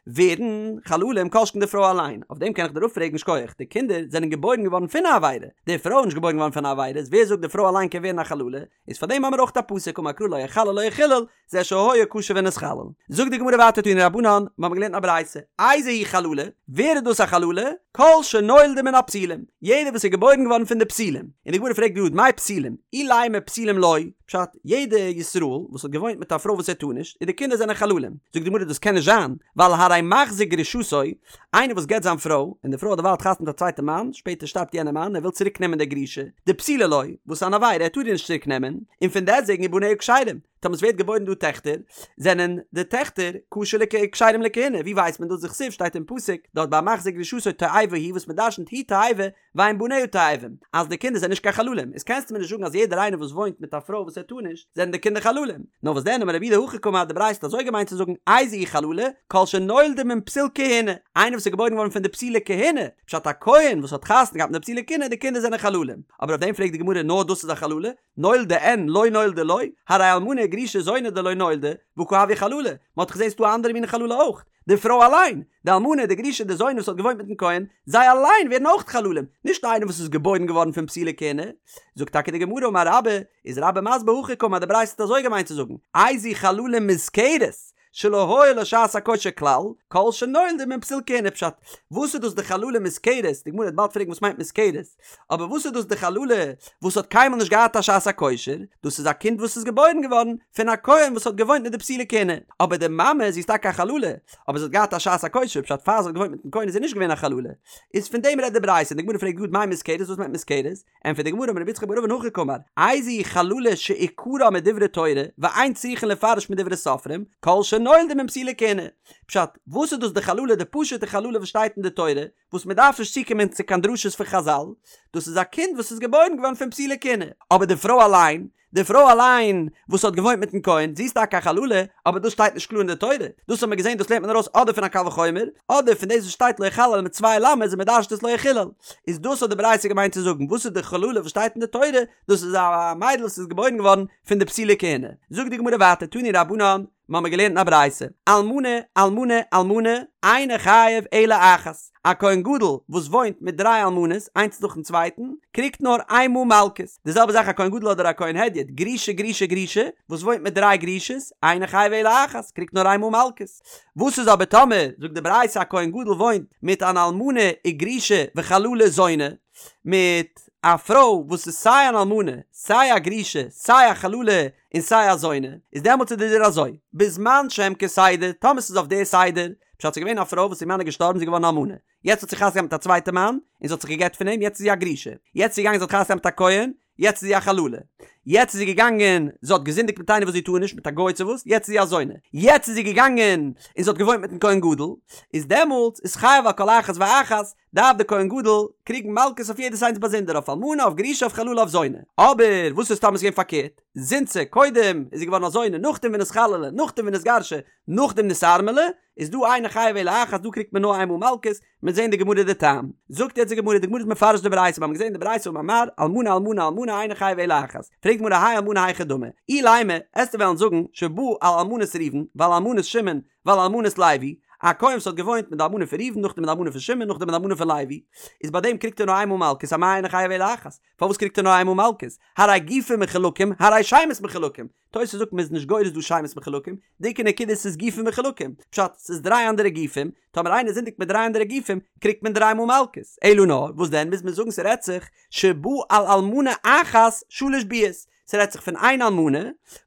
ווערן חללים כל שכן די פרוי אליין, אויף דעם קען איך דיר אפפרעגן שכוח, די קינדער זענען געבוירן געווארן פון א עבירה, די פרוי איז נישט געבוירן געווארן פון א עבירה, איז ווער זאגט די פרוי אליין קען ווערן א חללה, איז פאר דעם האמיר אויך א פסוק אמר קרא לא יחלל לא יחולל, זה שהיה כשר ונתחלל. זאגט די גמרא ווייטער תנו רבנן, מיר האבן געלערנט א ברייתא, איזו היא חללה, ווער איז דאס א חללה? כל שנולדה מן הפסולים, יעדער וואס איז געבוירן געווארן פון די פסולים, און די גמרא פרעגט גראד מאי פסולים, אילימא פסולים לו, פשט, יעדע ישראל וואס האט געוואוינט מיט א פרוי וואס ער טאר נישט, און די קינדער זענען חללים, זאגט די גמרא דאס קען נישט זיין, ווייל הרי מחזיר גרושתו, איינער וואס גט זיין פרוי, און די פרוי האט דערווייל חתונה מיט א צווייטע מאן, שפעטער שטארבט יענער מאן, ער וויל צוריק נעמען די גרושה, דפסולה לו, וואס איז אן עבירה, ער טאר איר נישט צוריק נעמען, און פון דעסטוועגן ובניה כשרים, טאמער עס ווערט געבוירן דא טעכטער, זענען די טעכטער כשר לכ כשרים לכהונה, ווי ווייסט מען דאס דכתיב שטייט אין פסוק, דארט ביי מחזיר גרושתו תועבה היא וואס מען דרשנ'ט היא תועבה, ואין בניה תועבים, אז די קינדער זענען נישט קיין חללים, איז קענסטו מיר נישט זאגן אז יעדער איינער וואס וואוינט מיט א פרוי וואס ער טאר נישט, זענען די קינדער חללים. נאר וואס דען אמר רב יהודה הכי קאמר די ברייתא האט אזוי געמיינט צו זאגן איזו היא חללה, כל שנולדה מן פסול כהונה, איינער וואס איז געבוירן געווארן פון די פסולי כהונה, פשט א כהן וואס האט חתונה געהאט מיט די פסולי כהונה, די קינדער זענען חללים. אבער אויף דעם פרעגט די גמרא נאר דאס איז א חללה? נולדה אין לא נולדה לא, הרי אלמנה גרושה זונה דלא נולדה, והא קא הויא חללה, מען האט דאך געזען ס'דא א אנדערע מין חללה אויך, די פרוי אליין, די אלמנה, די גרושה, די זונה וואס האט געוואוינט מיטן כהן, זיי אליין ווערן אויך חללים, נישט איינער וואס איז געבוירן געווארן פון פסולי כהונה. זאגט טאקע די גמרא אמר רבה, איז רבה מסביר הכי קאמר די ברייתא האט אזוי געמיינט צו זאגן, איזו חללה מוזכרת, שלא היה לה שעת הכושר כלל, כל שנולדה מן פסול כהונה פשט, וואס איז דאס די חללה מוזכרת, די גמרא וועט באלד פרעגן וואס מיינט מוזכרת, אבער וואס איז דאס די חללה וואס האט קיינמאל נישט געהאט א שעת הכושר, דאס איז א קינד וואס איז געבוירן געווארן פון א כהן וואס האט געוואוינט מיט די פסולי כהונה, אבער די מאמע זי איז טאקע א חללה, אבער זי האט געהאט א שעת הכושר, פשט פאר זי האט געוואוינט מיטן כהן איז זי נישט געווען א חללה, איז פון דעם רעדט די ברייתא, און די גמרא פרעגט גראד מאי מוזכרת וואס מיינט מוזכרת, ענטפערט די גמרא אמר רב יצחק בר אבין הכי קאמר, איזו היא חללה שעיקרה מדברי תורה ואין צריכין לפרש מדברי סופרים, כל שנולדה מן פסולי כהונה. פשט, וואס איז דאס די חללה די פשוטע חללה וואס שטייט אין די תורה, וואס מען דארף נישט צוקומען צו קיין דרשות פון חזל, דאס איז א קינד וואס איז געבוירן געווארן פון פסולי כהונה, אבער די פרוי אליין, די פרוי אליין וואס האט געוואוינט מיטן כהן, זי איז טאקע א חללה, אבער דאס שטייט נישט קלאר אין די תורה, דאס האט מען געזען דאס לערנט מען ארויס אדער פון א קל וחומר, אדער פון דאס וואס שטייט לא יחלל מיט צוויי למד'ס און מען דרש'ט עס לא יחולל. איז דאס האט די ברייתא געמיינט צו זאגן, וואס איז די חללה וואס שטייט אין די תורה, דאס איז א מיידל וואס איז געבוירן געווארן פון די פסולי כהונה. זאגט די גמרא ווייטער, תנו רבנן, מיר האבן געלערנט אין א ברייתא, אלמנה, אלמנה, אלמנה, אינו חייב אלא אחת, א כהן גדול וואס וואוינט מיט דריי אלמנות איינס נאכן צווייטן, קריגט נאר איין מאל מלקות, די זעלבע זאך א כהן גדול אדער א כהן הדיוט, גרושה גרושה גרושה, וואס וואוינט מיט דריי גרושות, אינו חייב אלא אחת, קריגט נאר איין מאל מלקות. וואס איז אבער טאמער, זאגט די ברייתא א כהן גדול וואוינט מיט אן אלמנה וגרושה וחללה זונה, מיט א פרוי וואס איז סיי אן אלמנה, סיי א גרושה, סיי א חללה, און סיי א זונה, איז דעמאלטס איז די דין אזוי, בזמן שהם כסדר, טאמער ס'איז אויף די סדר, פשט ס'איז געווען א פרוי וואס איר מאן איז געשטארבן זי איז געווארן אלמנה, יעצט האט זי חתונה געהאט מיט א צווייטע מאן, און זי האט זיך גע'גט פון אים, יעצט איז זי א גרושה, יעצט איז זי געגאנגען זי האט חתונה געהאט מיט א כהן, יעצט איז זי א חללה, יעצט איז זי געגאנגען זי האט געזינדיגט מיט איינער וואס זי טאר נישט, מיט א גוי צו וואס, יעצט איז זי א זונה, יעצט איז זי געגאנגען און זי האט געוואוינט מיטן כהן גדול, איז דעמאלטס איז חייב על כל אחת ואחת, דארף דער כהן גדול קריגן מלקות אויף יעדעס איינס באזונדער, אויף אלמנה, אויף גרושה, אויף חללה, אויף זונה. אבער וואס איז טאמער ס'איז געווען פארקערט? זינתה, קודם איז זי געווארן א זונה, נאכדעם ונתחללה, נאכדעם ונתגרשה, נאכדעם נתארמלה, איז דא אינו חייב אלא אחת, דא קריגט מען נאר איינמאל מלקות, מ'וועט זען די גמרא די טעם. זאגט יעצט די גמרא, די גמרא איז מפרש די ברייתא, מיר האבן געזען די ברייתא אמר מר, אלמנה אלמנה אלמנה אינו חייב אלא אחת. פרעגט די גמרא האי אלמנה היכי דמי? אילימא, עסטו וועלן זאגן, שבא על אלמנת ראובן, ועל אלמנת שמעון, ועל אלמנת לוי, א כהן וואס האט געוואוינט מיט די אלמנה פון ראובן נאכדעם מיט די אלמנה פון שמעון נאכדעם מיט די אלמנה פון לוי, איז ביי דעם קריגט ער נאר איינמאל מלקות אמאי אינו חייב אלא אחת, פארוואס קריגט ער נאר איינמאל מלקות? הרי גופים מחולקים הרי שמות מחולקים, תוס' זאגט מ'איז נישט גורס דא שמות מחולקים, די עיקר נקודה ס'איז גופים מחולקים, פשט, ס'איז דריי אנדערע גופים, טאמער איינער זינדיגט מיט דריי אנדערע גופים, קריגט מען דריי מאל מלקות, אלא נאר, וואס דען מוז מען זאגן ס'רעדט זיך שבא על אלמנה אחת שלש ביאות, ס'רעדט זיך פון איין אלמנה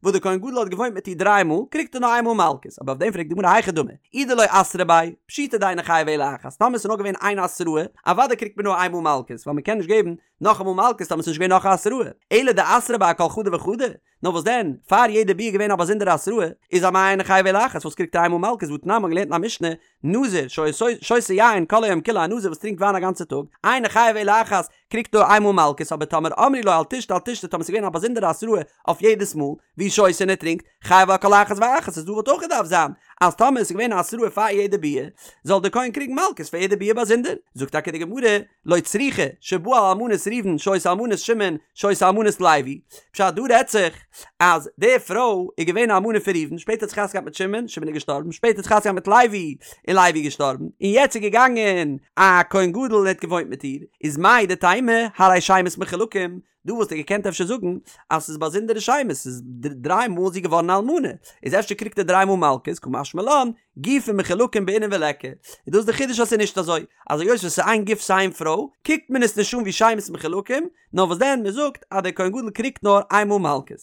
וואס דער כהן גדול האט געוואוינט מיט איר דריי מאל, קריגט ער נאר איין מאל מלקות, אבער אויף דעם פרעגט די גמרא היכי דמי, אי דלא אתרו ביה, פשיטא דאינו חייב אלא אחת, טאמער ס'איז נאר געווען איין התראה, אוודאי קריגט מען נאר איין מאל מלקות, ווייל מ'קען נישט געבן נאכאמאל מלקות טאמער ס'איז נישט געווען נאך א התראה, אלא דאתרו ביה אכל חדא וחדא, נאר וואס דען, פאר יעדע ביאה איז געווען א באזונדערע התראה, איז אמאי אינו חייב אלא אחת, וואס קריגט ער איין מאל מלקות, והתנן מ'האט געלערנט אין א משנה, נזיר שהיה שותה יין כל היום כולו א נזיר וואס טרינקט וויין א גאנצע טאג, אינו חייב אלא אחת, קריגט נאר איינמאל מלקות אבער טאמער אמרו לו אל תשתה אל תשתה טאמער ס'איז געווען א באזונדערע התראה אויף יעדעס מאל והוא שותה און ער טרינקט, חייב על כל אחת ואחת איז דא וואלט אויך געדארפט זיין אז טאמער עס איז געווען א התראה פאר יעדע ביאה, זאל דער כהן קריגן מלקות פאר יעדע ביאה באזונדער. זאגט טאקע די גמרא, לא צריכא, שבאה על אלמנת ראובן שהיתה אלמנת שמעון שהיתה אלמנת לוי, פשט דא רעדט זיך אז די פרוי איז געווען א אלמנה פון ראובן שפעטער האט זי חתונה געהאט מיט שמעון, שמעון איז געשטארבן, שפעטער האט זי חתונה געהאט מיט לוי און לוי איז געשטארבן, און יעצט איז געגאנגען א כהן גדול און האט געוואוינט מיט איר, איז מהו דתימא הרי שמות מחולקים, דא וואלסטו געקענט אפשר זאגן אז ס'איז באזונדערע שמות, ס'איז דריי מאל זי געווארן א אלמנה, איז אפשר קריגט ער דריי מאל מלקות, קא משמע לן, גופין מחולקים בעינן וליכא, איז דאס די חידוש אז ס'איז נישט אזוי, אז היות וואס ס'איז איין גוף ס'איז איין פרוי, קוקט מען עס נישט אן ווי שמות מחולקים, נאר וואס דען מ'זאגט אז דער כהן גדול קריגט נאר איין מאל מלקות.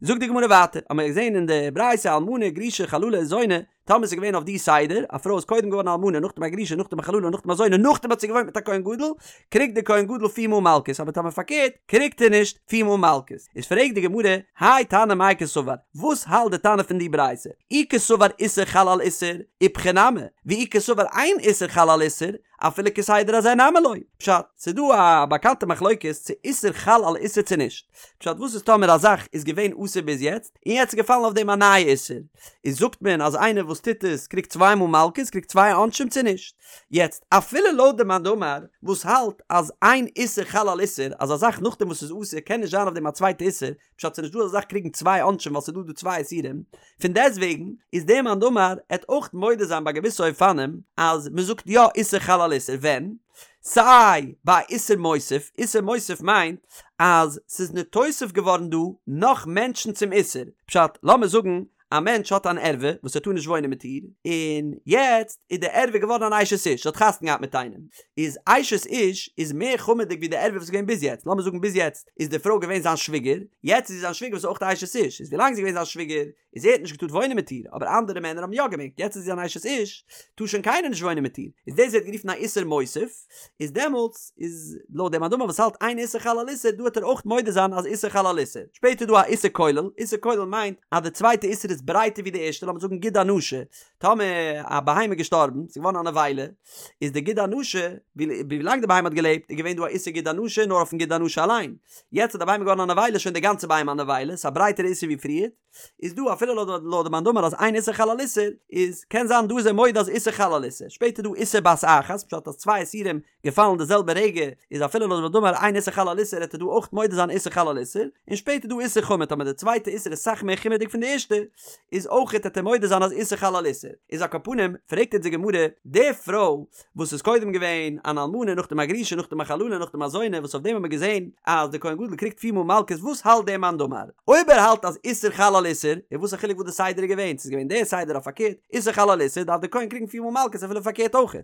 זאגט די גמרא ווייטער, האמיר געזען אין די ברייתא אלמנה גרושה חללה זונה, טאמער ס'איז געווען אויף די סדר, א פרוי איז קודם געווארן א אלמנה, נאכדעם א גרושה, נאכדעם א חללה, נאכדעם א זונה, נאכדעם האט זי געוואוינט מיט א כהן גדול, קריגט דער כהן גדול פיר מאל מלקות, אבער טאמער פארקערט, קריגט ער נישט פיר מאל מלקות. איז פרעגט די גמרא, האי תנא מאי קסבר, וואס האלט די תנא פון די ברייתא? אי קסבר איסור חל על איסור, איפכא נמי, ואי קסבר אין איסור חל על איסור, אפילו כסדר הזה נמי לא. פשט, ס'איז דא א באקאנטע מחלוקת צו איסור חל על איסור צו נישט. פשט, וואס איז טאמער א זאך איז געווען אסור ביז יעצט, און יעצט איז געפאלן אויף דעם א נייע איסור, איז זאגט מען אז איינער וואס טוט עס קריגט צוויי מאל מלקות, קריגט צוויי עונשים צו נישט? יעצט, אפילו לויט די מאן דאמר וואס האלט אז אין איסור חל על איסור, אז א זאך נאכדעם וואס ס'איז אסור קען נישט זיין אויף דעם א צווייטע איסור, פשט ס'נישט דא אזא זאך קריגן צוויי עונשים ווייל ס'איז דא דא צוויי איסורים, פון דעסטוועגן איז דער מאן דאמר עט אויך מודה זיין ביי געוויסע אופנים אז מ'זאגט יא איסור חל על איסור ווען? סיי ביי איסור מוסיף, איסור מוסיף מיינט אז ס'איז נתוסף געווארן דא נאך מענטשן צום איסור, פשט לאמיר זאגן א מענטש האט אן ערווה וואס ער טאר נישט וואוינען מיט איר, און יעצט איז די ערווה געווארן אן אשת איש, זי האט חתונה געהאט מיט איינעם, איז אשת איש איז מער חמור'דיג ווי די ערווה וואס איז געווען ביז יעצט, לאמיר זאגן ביז יעצט איז די פרוי געווען זיין שוויגער, יעצט איז זי זיין שוויגער וואס איז אויך א אשת איש, איז ווילאנג זי איז געווען זיין שוויגער איז ער האט נישט געטארט וואוינען מיט איר, אבער אנדערע מענער האבן יא געמעגט, יעצט איז זי אן אשת איש, טאר שוין קיינער נישט וואוינען מיט איר, איז דאס ווערט גערופן א איסור מוסיף, איז דעמאלטס איז לויט דעם מאן דאמר וואס האלט אין איסור חל על איסור דא וועט ער אויך מודה זיין אז איסור חל על איסור, שפעטער איז דא א איסור כולל, איסור כולל מיינט אז די צווייטע איסור איז ברייטער ווי די ערשטע, לאמיר זאגן גיד הנשה, טאמער א בהמה איז געשטארבן, ס'איז געווארן א נבילה, איז די גיד הנשה, ווילאנג די בהמה האט געלעבט איז געווען דא א איסור גיד הנשה נאר אויפן גיד הנשה אליין, יעצט אז די בהמה איז געווארן א נבילה איז שוין די גאנצע בהמה א נבילה, ס'איז א ברייטערע איסור ווי פריער. איז דא אפילו לויט די מאן דאמר אז אין איסור חל על איסור איז קען זיין דא איז ער מודה אז איסור חל על איסור שפעטער דא איסור בת אחת פשט אז צוויי איסורים געפאלן די זעלבע רגע איז אפילו לויט די מאן דאמר אין איסור חל על איסור העט ער דא אויך מודה זיין איסור חל על איסור און שפעטער דא איסור חמור טאמער די צווייטע איסור איז סאך מער חומר'דיג פון די ערשטע איז אויך העט ער מודה זיין אז איסור חל על איסור איז על כל פנים פרעגט אונז די גמרא די פרוי וואס איז קודם געווען אן אלמנה נאכדעם א גרושה נאכדעם א חללה נאכדעם א זונה וואס אויף דעם האט מען געזען אז דער כהן גדול קריגט פיר מאל מלקות וואס האלט דער מאן דאמר? אויב ער האלט אז איסור חל על איסור איז וואס א חילוק וואס די סדר איז געווען ס'איז געווען דער סדר אויף פארקערט איסור חל על איסור דארף דער כהן קריגן פיר מאל מלקות אפילו פארקערט אויך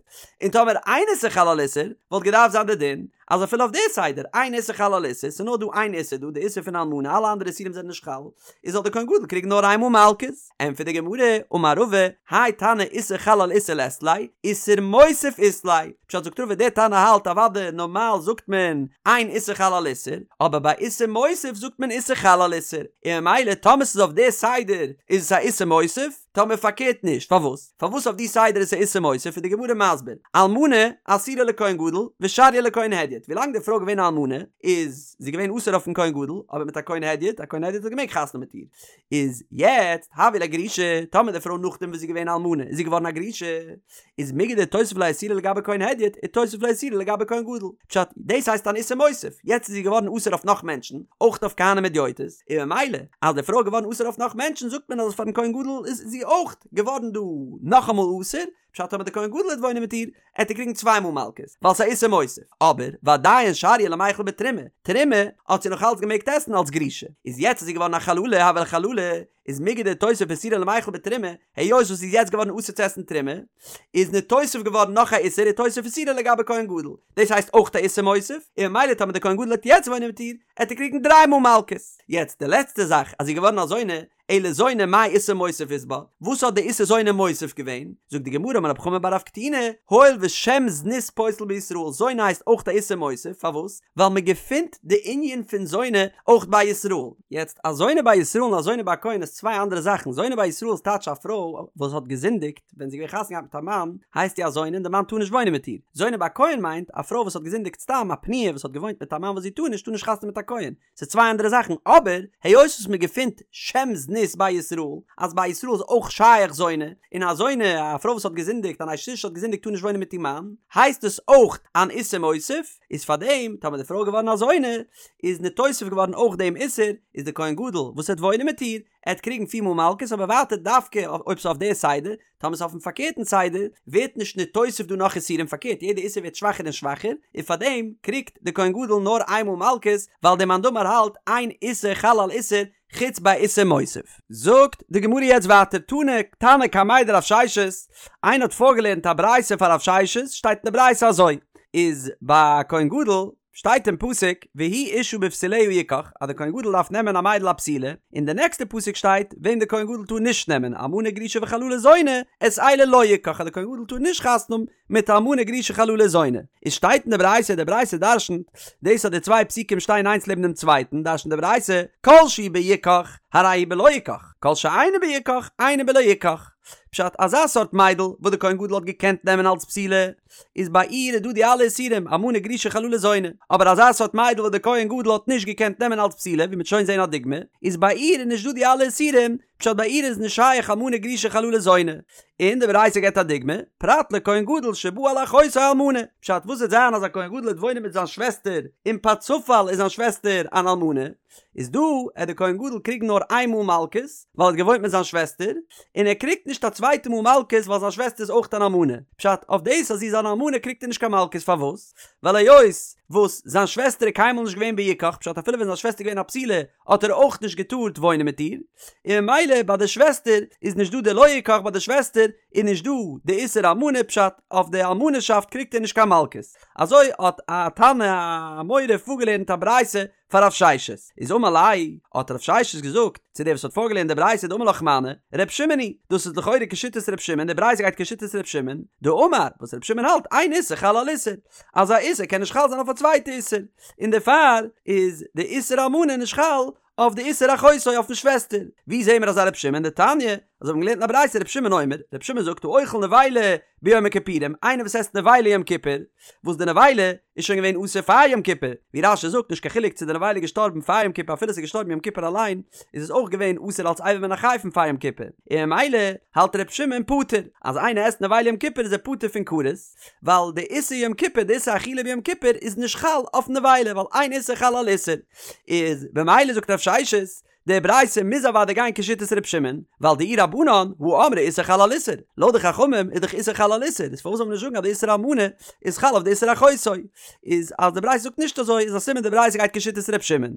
און טאמער אין איסור חל על איסור וואלט געדארפט זיין די דין אז אפילו אויף די סדר אין איסור חל על איסור ס'איז נאר דא איין איסור דא די איסור פון אלמנה אלע אנדערע איסורים זענען נישט חל איז זאל דער כהן גדול קריגן נאר איין מאל מלקות. ענטפערט די גמרא, אמר רבא, האי תנא איסור חל על איסור לית ליה, איסור מוסיף אית ליה. פשט זאגט רבא דער תנא האלט אוודאי נארמאל זאגט מען אין איסור חל על איסור, אבער ביי איסור מוסיף זאגט מען איסור חל על איסור, און ממילא טאמער ס'איז אויף די סדר איז עס א איסור מוסיף, טאמער פארקערט נישט, פארוואס? פארוואס אויף די סדר איז עס א איסור מוסיף איז די גמרא מסביר, אלמנה אסירה לכהן גדול ושריא לכהן הדיוט, ווילאנג די פרוי איז געווען א אלמנה איז זי געווען אסור אויפן כהן גדול, אבער מיט א כהן הדיוט, א כהן הדיוט האט געמעגט חתונה מיט איר, איז יעצט הויא לה גרושה, טאמער די פרוי נאכדעם וואס זי איז געווען אלמנה איז זי געווארן א גרושה, איז מיגו דאיתותב לה איסורא לגבי כהן הדיוט, איתותב לה איסורא לגבי כהן גדול. פשט, דאס הייסט אן איסור מוסיף, יעצט איז זי געווארן אסור אויף נאך מענטשן, אויך אויף כהנים הדיוטות, און ממילא אז די פרוי איז געווארן אסור אויף נאך מענטשן זאגט מען אז פארן כהן גדול איז זי אויך געווארן דא נאכאמאל אסור, פשט טאמער די כהן גדול וועט וואוינען מיט איר, עט ער קריגן צוויי מאל מלקות, ווייל ס'איז א איסור מוסיף. אבער, ועדיין שריא למיכל בתרומה, תרומה האט זי נאך אלץ געמעגט עסן אלס גרושה. איז יעצט איז זי געווארן א חללה, הויא לה חללה, איז מיגו דאיתותב איסורא למיכל בתרומה, היות וואס זי איז יעצט געווארן אסור צו עסן תרומה, איז ניתוסף געווארן נאך א איסור איתותב איסורא לגבי כהן גדול. דאס הייסט אויך א איסור מוסיף, און ממילא טאמער די כהן גדול וועט יעצט וואוינען מיט איר, עט ער קריגן דריי מאל מלקות. יעצט די לעצטע זאך, אז זי איז געווארן א זונה, אלא זונה מאי איסור מוסיף אית בה, וואס האט די איסור זונה מוסיף געווען? זאגט די גמרא אמר רב חמא בר רב קטינא, הואיל ושם זנות פוסל בישראל, זונה הייסט אויך א איסור מוסיף, פארוואס? ווייל מען געפינט די ענין פון זונה אויך ביי ישראל. יעצט א זונה ביי ישראל און א זונה ביי א כהן איז צוויי אנדערע זאכן, זונה ביי ישראל איז טייטש א פרוי וואס האט געזינדיגט ווען זי איז געווען חתונה געהאט מיט א מאן, הייסט זי א זונה און די מאן טאר נישט וואוינען מיט איר. זונה ביי א כהן מיינט א פרוי וואס האט געזינדיגט סתם, א פנויה וואס האט געוואוינט מיט א מאן וואס זי טאר נישט, טאר נישט חתונה מיט א כהן. ס'איז צוויי אנדערע זאכן, אבער היות וואס מען געפינט שם זנות זנות ביי ישראל, אז ביי ישראל איז אויך שייך זונה, און א זונה, א פרוי וואס האט געזינדיגט, אן אשת איש האט געזינדיגט טאר נישט וואוינען מיט איר מאן, הייסט עס אויך אן איסור מוסיף, איז פארדעם טאמער די פרוי איז געווארן א זונה, איז נתוסף געווארן אויך דעם איסור, איז די כהן גדול וואס וועט וואוינען מיט איר, ער וועט קריגן פיר מאל מלקות אבער ווייטער דווקא אויב ס'איז אויף די סדר, טאמער ס'איז אויפן פארקערטן סדר, ווערט נישט נתוסף דא נאך איסורים פארקערט יעדע איסור ווערט שוואכער און שוואכער, און פארדעם קריגט די כהן גדול נאר איין מאל מלקות, ווייל דער מאן דאמר האלט אין איסור חל על איסור חוץ ביי איסור מוסיף. זאגט די גמרא יעצט ווייטער תני תנא קמיה דרב ששת, איינער האט פארגעלערנט א ברייתא פאר רב ששת, שטייט אין די ברייתא אזוי, איז ביי א כהן גדול שטייט אין פסוק והוא אשה בבתוליה יקח אז די כהן גדול דארף נעמען א מיידל א בתולה, און די נעקסטע פסוק שטייט וועם די כהן גדול טאר נישט נעמען אלמנה גרושה וחללה זונה את אלה לא יקח אז די כהן גדול טאר נישט חתונה האבן מיט אלמנה גרושה חללה זונה, איז שטייט אין די ברייתא די ברייתא דרשנט דאס אז די צוויי פסוקים שטייען איינס לעבן דעם צווייטן דרשנט די ברייתא כל שהוא ביקח הרי הוא בלא יקח כל שאינו ביקח אינו בלא יקח פשט אזא סארט מיידל וואס די כהן גדול האט געקענט נעמען אלס בתולה איז ביי איר איז דא די אלע איסורים, אלמנה גרושה חללה זונה, אבער אזא סארט מיידל וואס די כהן גדול האט נישט געקענט נעמען אלס בתולה, ווי מ'וועט שוין זען א דוגמא, איז ביי איר איז נישט דא די אלע איסורים, פשט ביי איר איז נישט שייך אלמנה גרושה חללה זונה. און די ברייתא געבט א דוגמא, פרט לכהן גדול שבא על אחותו אלמנה, פשט וואס וועט זיין אז א כהן גדול וועט וואוינען מיט זיין שוועסטער און פארצופאל איז זיין שוועסטער אן אלמנה, איז דא עט די כהן גדול קריגן נאר איין מאל מלקות ווייל ער האט געוואוינט מיט זיין שוועסטער, און ער קריגט נישט א צווייטע מאל מלקות ווייל זיין שוועסטער איז אויך אן אלמנה, פשט אויף דאס אז זי איז אן אלמנה קריגט ער נישט קיין מלקות פארוואס? ווייל היות וואס זיין שוועסטער איז קיינמאל נישט געווען ביקח פשט אפילו ווען זיין שוועסטער איז געווען א בתולה האט ער אויך נישט געטארט וואוינען מיט איר, און ממילא ביי די שוועסטער איז נישט דא די לא יקח ביי די שוועסטער איז נישט דא די איסור אלמנה פשט אויף די אלמנה'שאפט קריגט ער נישט קיין מלקות, אזוי האט א תנא א אמורא פארגעלערנט א ברייתא פאר רב ששת, איז אמר ליה, האט רב ששת געזאגט צו דער וואס האט פארגעלערנט די ברייתא דאמר לך מני, ר' שמעון היא, דאס איז לכאורה כשיטת ר' שמעון, די ברייתא גייט כשיטת ר' שמעון, דאמר, וואס ר' שמעון האלט, אין איסור חל על איסור, אז א איסור קען נישט חל זיין אויף א צווייטע איסור, און דערפאר איז די איסור אלמנה נישט חל אויף די איסור אחותו אויפן שוועסטער. ווי זעהן מיר אזא ר' שמעון? דתניא, אזוי האבן מיר געלערנט אין א ברייתא ר' שמעון אומר, ר' שמעון זאגט האוכל נבילה ביום הכיפורים, איינער וואס עסט נבילה יום כיפור, וואס די נבילה איז שוין געווען אסור פאר יום כיפור, ווי רש"י זאגט נישט קיין חילוק צו די נבילה איז געשטארבן פאר יום כיפור אפילו עס איז געשטארבן יום כיפור אליין, איז עס אויך געווען אסור אלס אבר מן החי פון פאר יום כיפור, און ממילא האלט ר' שמעון פטור, אז איינער עסט נבילה יום כיפור איז ער פטור פון כרת, ווייל די איסור יום כיפור די איסור אכילה ביום כיפור איז נישט חל אויף נבילה ווייל אין איסור חל על איסור, איז במילא זאגט רב ששת די ברייתא מוז אוודאי גיין כשיטת ר' שמעון, ווייל דאי רבנן הא אמרי איסור חל על איסור, לויט די חכמים איז דאך איסור חל על איסור, איז פארוואס זאל מען נישט זאגן אז די איסור אלמנה איז חל אויף די איסור אחותו? איז אז די ברייתא זאגט נישט אזוי איז א סימן די ברייתא גייט כשיטת ר' שמעון.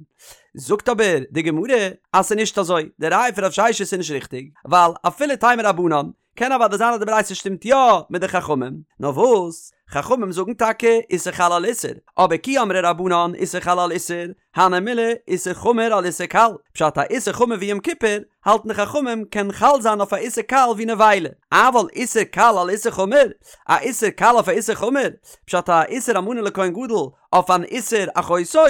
זאגט אבער די גמרא אז ס'איז נישט אזוי, די ראיה פון רב ששת איז נישט ריכטיג, ווייל אפילו תימא רבנן, קען אוודאי זיין אז די ברייתא שטימט יא מיט די חכמים, נאר וואס, חכמים זאגן טאקע איסור חל על איסור, אבער כי אמרי רבנן איסור חל על איסור, הני מילי איסור חמור על איסור קל, פשט א איסור חמור ווי יום כיפור, האלטן די חכמים קען חל זיין אויף א איסור קל ווי נבילה, אבל איסור קל על איסור חמור, א איסור קל אויף א איסור חמור, פשט א איסור אלמנה לכהן גדול אויף אן איסור אחותו,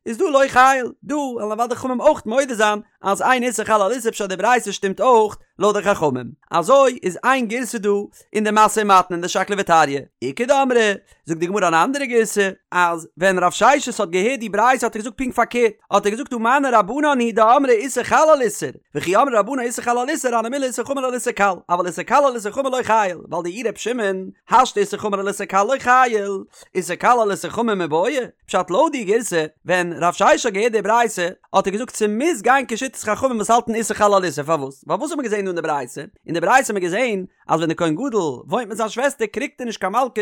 איז דא לא חייל, דא וועלן אוודאי חכמים אויך מודה זיין אז אין איסור חל על איסור פשט די ברייתא שטימט אויך לויט די חכמים. אזוי איז איין גירסא דא אין די משא ומתן אין די שקלא וטריא. איכא דאמרי, זאגט די גמרא אן אנדערע גירסא, אז ווען רב ששת האט געהערט די ברייתא האט ער געזאגט פונקט פארקערט, האט ער געזאגט הא מני רבנן היא דאמרי איסור חל על איסור, וכי אמרי רבנן איסור חל על איסור הני מילי איסור חמור על איסור קל, אבל איסור קל על איסור חמור לא חייל, ווייל דאי ר' שמעון, השתא איסור חמור על איסור קל לא חייל, איסור קל על איסור חמור מיבעיא, פשט לויט די גירסא, ווען רב ששת האט געהערט די ברייתא, האט ער געזאגט ס'מוז גיין כשיטת חכמים וואס האלטן איסור חל על איסור, פארוואס? ווייל וואס האט מען געזען דא אין די ברייתא? אין די ברייתא האט מען געזען אז ווען די כהן גדול וואוינט מיט זיין שוועסטער קריגט ער נישט קיין מלקות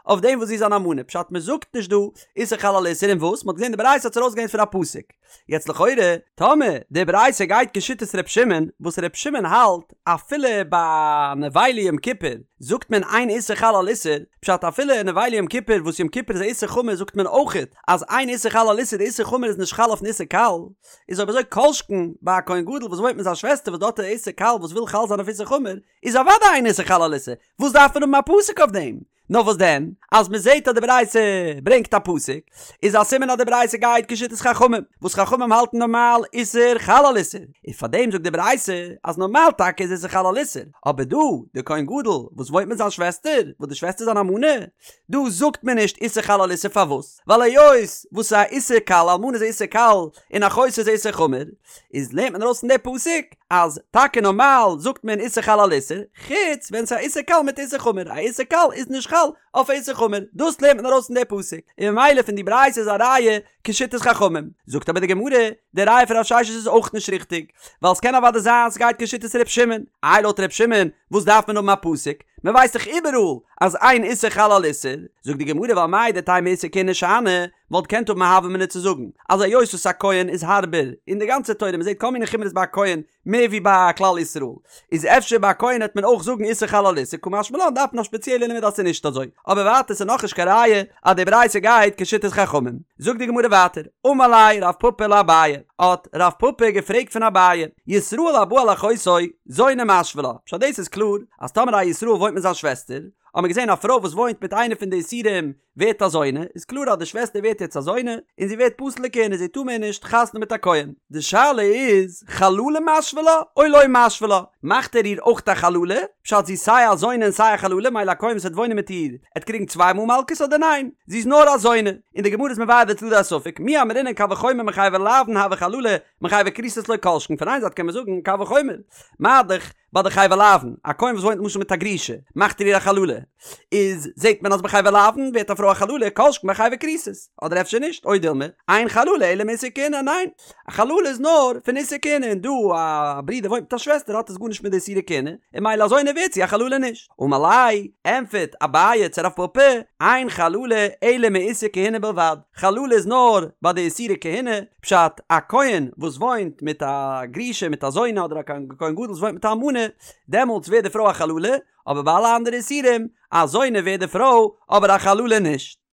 אויף דעם וואס זי איז אן אלמנה, פשט מ'זאגט נישט דא איסור חל על איסור און וואס? מ'האט געזען די ברייתא האט עס ארויסגעלערנט פון א פסוק. יעצט לכאורה, טאמער די ברייתא גייט כשיטת ר' שמעון, וואס ר' שמעון האלט אפילו ביי נבילה יום כיפור זאגט מען אין איסור חל על איסור, פשט אפילו נבילה יום כיפור וואס יום כיפור איז א איסור חמור זאגט מען אויכעט אז אין איסור חל על איסור די איסור חמור איז נישט חל אויפן איסור קל, איז אויב אזוי כל שכן ביי א כהן גדול וואס וואוינט מיט זיין שוועסטער וואס דארט איז א איסור קל וואס וויל חל זיין אויף איסור חמור, איז אוודאי אין איסור חל על איסור, וואס דארף מען האבן א פסוק אויף דעם? נאר וואס דען אז מען זעט אז די ברייתא ברענגט א פסוק איז א סימן אז די ברייתא גייט כשיטת חכמים, וואס חכמים האלטן נארמאל איסור חל על איסור, און פארדעם זאגט די ברייתא אז נארמאל טאקע איז איסור חל על איסור, אבער דא די כהן גדול וואס וואוינט מיט זיין שוועסטער, וואס די שוועסטער איז אן אלמנה, דא זאגט מען נישט איסור חל על איסור פארוואס? ווייל היות וואס ס'איז א איסור קל, אלמנה איז א איסור קל, און אחותו איז א איסור חמור, איז לערנט מען ארויס פון די פסוק אז טאקע נארמאל זאגט מען איסור חל על איסור, חוץ ווען ס'איז א איסור קל מיט איסור חמור, א איסור קל איז נישט חל אויף א איסור חמור, דאס לערנט מען ארויס פון די פסוק, און ממילא פון די ברייתא איז א ראיה כשיטת חכמים. זאגט אבער די גמרא, די ראיה פון רב ששת איז אויך נישט ריכטיג, ווייל ס'קען אוודאי זיין ס'גייט כשיטת ר' שמעון, איי לויט ר' שמעון וואס דארף מען האבן א פסוק, מ'ווייסט דאך איבעראל אז אין איסור חל על איסור, זאגט די גמרא ווייל מהו דתימא איסור כהונה שאני, וואלט געקענט האבן א הוה אמינא צו זאגן אז היות וואס א כהן איז הארבער אין די גאנצע תורה מ'זעט כל מיני חומרות ביי א כהן מער ווי ביי כלל ישראל איז אפשר ביי א כהן העט מען אויך זאגן איסור חל על איסור קא משמע לן דארף מען א שפעציעלע לימוד אז ס'איז נישט אזוי אבער ווייטער ס'איז נאכנישט קיין ראיה אז די ברייתא גייט כשיטת חכמים זאגט די גמרא ווייטער אמר ליה רב פפא לאביי האט רב פפא געפרעגט פון אביי ישראל הבא על אחותו זונה משוי לה פשט דאס איז קלאר אז טאמער א ישראל וואוינט מיט זיין שוועסטער האט מען געזען א פרוי וואס וואוינט מיט איינע פון די איסורים ווערט א זונה, איז קלאר אז די שוועסטער ווערט יעצט א זונה, און זי ווערט פסול לכהונה, זי טאר מער נישט חתונה מיט א כהן. די שאלה איז, חללה משוי לה, או לא משוי לה? מאכט ער איר אויך א חללה? פשט זי איז סיי א זונה און סיי א חללה, מילא א כהן וואס וועט וואוינען מיט איר, עט קריגן צוויי מאל מלקות אדער ניין? זי איז נאר א זונה. און די גמרא איז מבאר די צדדי הספק, מי אמרינן קל וחומר מחייבי לאוין הוה חללה, מחייבי כריתות לא כל שכן, פון איין זייט קען מען זאגן קל וחומר, מה דאך, ביי די חייבי לאוין, א כהן וואס וואוינט למשל מיט א גרושה, מאכט ער איר א חללה, איז זעט מען אז ביי חייבי לאוין ווערט א פרוי א חללה, כל שכן ביי חייבי כריתות, אדער אפשר נישט, או דילמא, אין חללה אלא מאיסור כהונה, ניין, א חללה איז נאר פון איסור כהונה, און דא א ברודער וואוינט מיט א שוועסטער האט עס גארנישט מיט די איסורי כהונה, און מילא א זונה ווערט זי א חללה נישט. אמר ליה, ענטפערט אביי צו רב פפא, אין חללה אלא מאיסור כהונה בלבד, חללה איז נאר ביי די איסורי כהונה, פשט, א כהן וואס וואוינט מיט א גרושה מיט א זונה אדער א כהן גדול וואס וואוינט מיט א אלמנה, דעמאלטס ווערט די פרוי א חללה, אבער ביי אלע אנדערע איסורים, א זונה ווערט די פרוי, אבער א חללה נישט.